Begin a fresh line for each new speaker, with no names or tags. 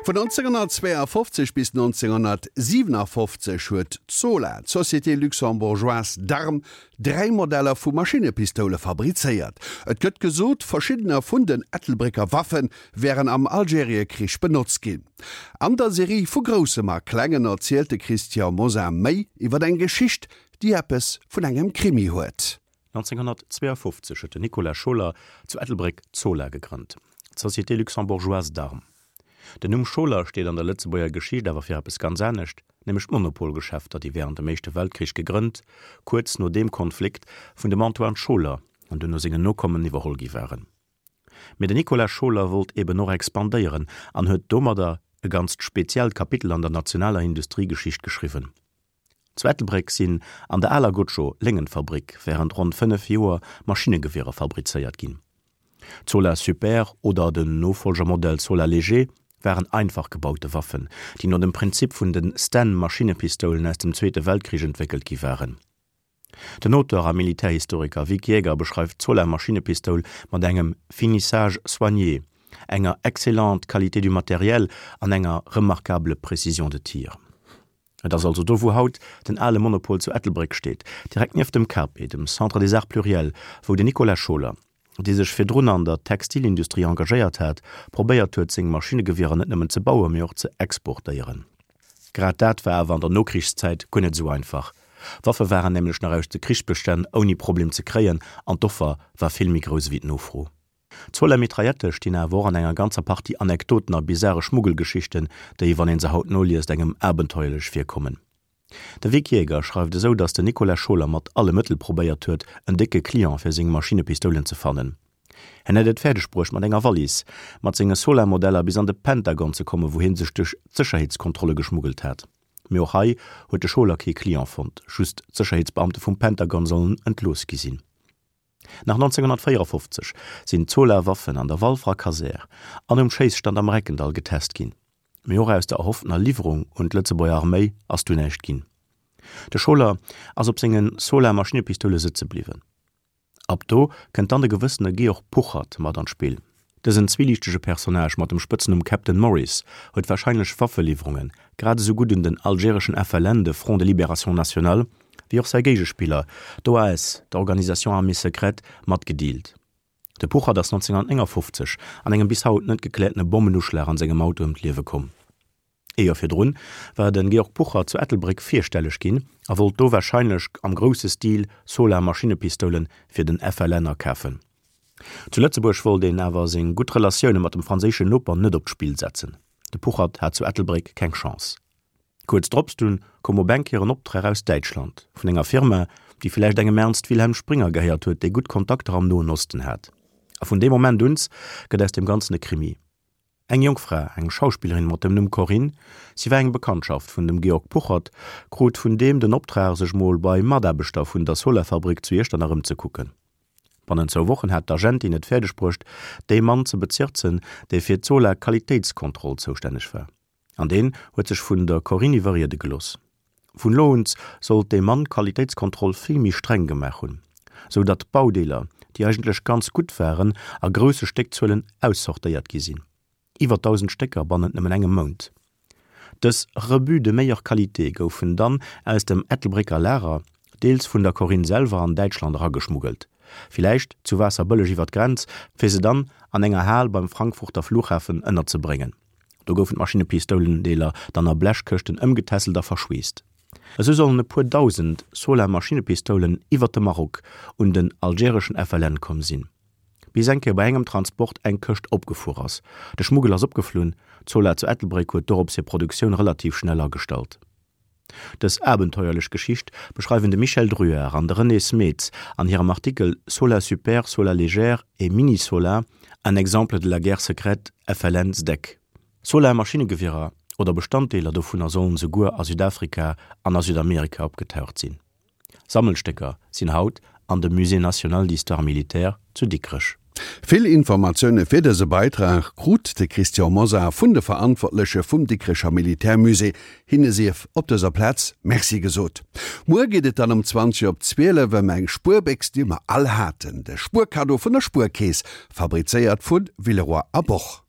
Vun 1952 bis 1957 huet d'Sola, d'Société Luxembourgeoise d'Armes, 3 Modeller vu Maschinnepistoule fabrizéiert. Et gëtt gesot, verschiddener vun den Ettelbrécker Waffe wären am Algeriekrich benotzt ginn. An der Serie Vu Groussem a Klengen erzielt de Christian Mosar méi iwwer eng Geschicht, déi eppes vun engem Krimi huet.
1952 huet den Nicolas Scholer zu Ettelbréck d'Sola gegrënnt, d'Société Luxembourgeoise d'Armes. Den Numm Scholer steet an der Lëtzebuerger Geschicht awer fir eppes ganz anescht, nämlech d'Monopolgeschäfter, déi wärend dem Éischte Weltkrich gegrënnt, kuerz no deem Konflikt vun dem Antoine Scholer an duerno sengen Nokommen iwwerholl gi waren. Mee den Nicolas Scholer wollt eben och expandéieren an huet domadder e ganzt speziellt Kapitel an der nationaler Industriegeschicht geschriwwen. Zu Ettelbréck sinn an der aler Gotscho Léngenfabrik wärend ronn 5 Joer Maschinnegewierer fabrizéiert ginn. D'Zola Super oder den Nofollgermodell Zola Léger waren einfach gebaute Waffen, déi no dem Prinzip vun de Sten-Maschinnepistoulen aus dem Zweete Weltkrich entwéckelt gi waren. Den Auteur a Militärhistoriker Vic Jäger beschreift d'Zola Maschinnepistoul mat engem finissage soigné, enger excellente qualité du matériel an enger remarquable précision de tir. Et ass also do wou haut den ale Monopol zu Ettelbréck steet, direkt nieft dem CAPE, dem Centre des Arts Pluriels, wou den Nicolas Scholer, dee sech virdrun an der Textilindustrie engagéiert hat, probéiert huet seng Maschinnegewierer net nëmmen ze bauen, mee och ze exportéieren. Grad dat war awer an der Nokrichszäit guer net esou einfach. Waffe waren nämlech nach aus de Krichsbestänn ouni Problem ze kréien an d'Offer war vill méi grouss ewéi d'Nofro. D'Zola Mitraillette stinn awer och an enger ganzer Partie Anekdoten a bizare Schmuggelgeschichten, déi, wann een se haut noliest, engem abenteuerlech virkommen. De Vic Jäger schreift esou, datt den Nicolas Scholer mat alle Mëttel probéiert huet, en décke Client fir seng Maschinnepistoulen ze fannen. Hien hätt et fäerdeg bruecht, mat enger Wallis mat senge Solar-Modeller bis an de Pentagon ze kommen, wou hie sech duerch d'Sécherheetskontrolle geschmuggelt hat. Mee och hei huet de Scholer kee Client fonnt, just d'Sécherheetsbeamte vum Pentagon sollen entlooss gi sinn. Nach 1954 sinn d'Solar-Waffen an der Walferer Kasär an um Schéisstand am Reckendall getest ginn. Mee och aus der erhofftener Liwwerung un d'Lëtzebuerger Arméi ass dunn näischt ginn. De Scholer ass op senge Solar-Maschinnepistoule sëtze bliwwen. Ab do kënnt dann de gewëssene Georg Puchert mat an d'Spill. Dësen zwieliichtege Personnage mat dem Spëtznumm Captain Morris huet warscheinlech Waffeliwwerunge grad esou gutt un den algereschen FLN, de Front de Libération Nationale, wéi och säi Géigespiller, d'OAS, d'Organisation Armée Secrète, matgedealt. De Puchert ass 1959 an engem bis haut net gekläertene Bommenuschlag an sengem Auto ëm d'Liewe komm. Ee Joer virdrun war de Georg Puchert zu Ettelbréck virstelleg ginn a wollt do warscheinlech am grousse Stil Solar-Maschinnepistoule fir den FLN akafen. Zu Lëtzebuerg wollt een awer seng gutt Relatioune mat dem franséischen Noper net op d'Spill setzen. De Puchert hat zu Ettelbréck keng Chance. Kuerz drops dunn koum op eng Kéier en Optrag aus Däitschland, vun enger Firma, déi villäicht engem Ernst Wilhelm Springer gehéiert huet, dee gutt Kontakter am Noen Osten hat. A vun deem Moment uns gëtt aus deem Ganzen e Krimi. Eng jonk Fra, eng Schauspillerin mat dem Numm Corinne, si war eng Bekanntschaft vun dem Georg Puchert, krut vun deem den Optrag, sech mol bei Mataarbechter vun der Solarfabrik zu Iechternach ëmzekucken. Bannent zwou Wochen hat d'Agentin et fäerdeg bruecht, dee Mann ze bezirzen, dee fir d'Solar-Qualitéitskontroll zoustänneg war. An deen huet sech vun der Corinne iwwerriede gelooss. Vun elo un sollt dee Mann d'Qualitéitskontroll vill méi streng gemaach hunn, sou datt Baudeeler, déi eigentlech ganz gutt waren, a grousse Stéckzuelen aussortéiert gi sinn. Iwwer 1.000 Stécker bannent nëmmen engem Mount. Dës Rebuts de meilleure qualité goufen dann aus dem Ettelbrécker Lager, deels vun der Corinne selwer, an Däitschland erageschmuggelt, villäicht zu Waasserbëlleg iwwer d'Grenz, fir se dann an enger Hal beim Frankfurter Flughafen ënnerzebréngen. Do goufen d'Maschinepistoulendeeler dann a Blechkëschten ëmgetässelt a verschweesst. Esou sollen e puer dausend Sola-Maschinepistoulen iwwer de Maroc un den algereschen FLN komm sinn. Bis eng Kéier bei engem Transport eng Këscht opgefuer ass. De Schmuggel ass opgeflunn, d'Sola zu Ettelbréck huet dorops hir Produktioun relativ schnell agestallt. Dës abenteuerlech Geschicht beschreiwen de Michel Druart an de René Smeets an hirem Artikel Sola super, Sola légère et Mini-Sola, un exemple de la guerre secrète FLN-SDEC. Sola-Maschinnegewierer oder Bestanddeeler dovunner sollen souguer a Südafrika an a Südamerika opgetaucht sinn. Sammelstécker sinn haut an dem Musée national d'histoire militaire zu Dikrech.
Vill Informatioune fir dëse Beitrag krut de Christian Mosar vun de Verantwortleche vum Dikrecher Militärmusée. Hinne sief op dëser Plaz Merci gesot. Muer geet et dann um 20 op 12 ëm eng Spuerbéchs, déi mer all haten, de Spuerkaddo vun der Spuerkeess, fabrizéiert vu Villeroy a Boch.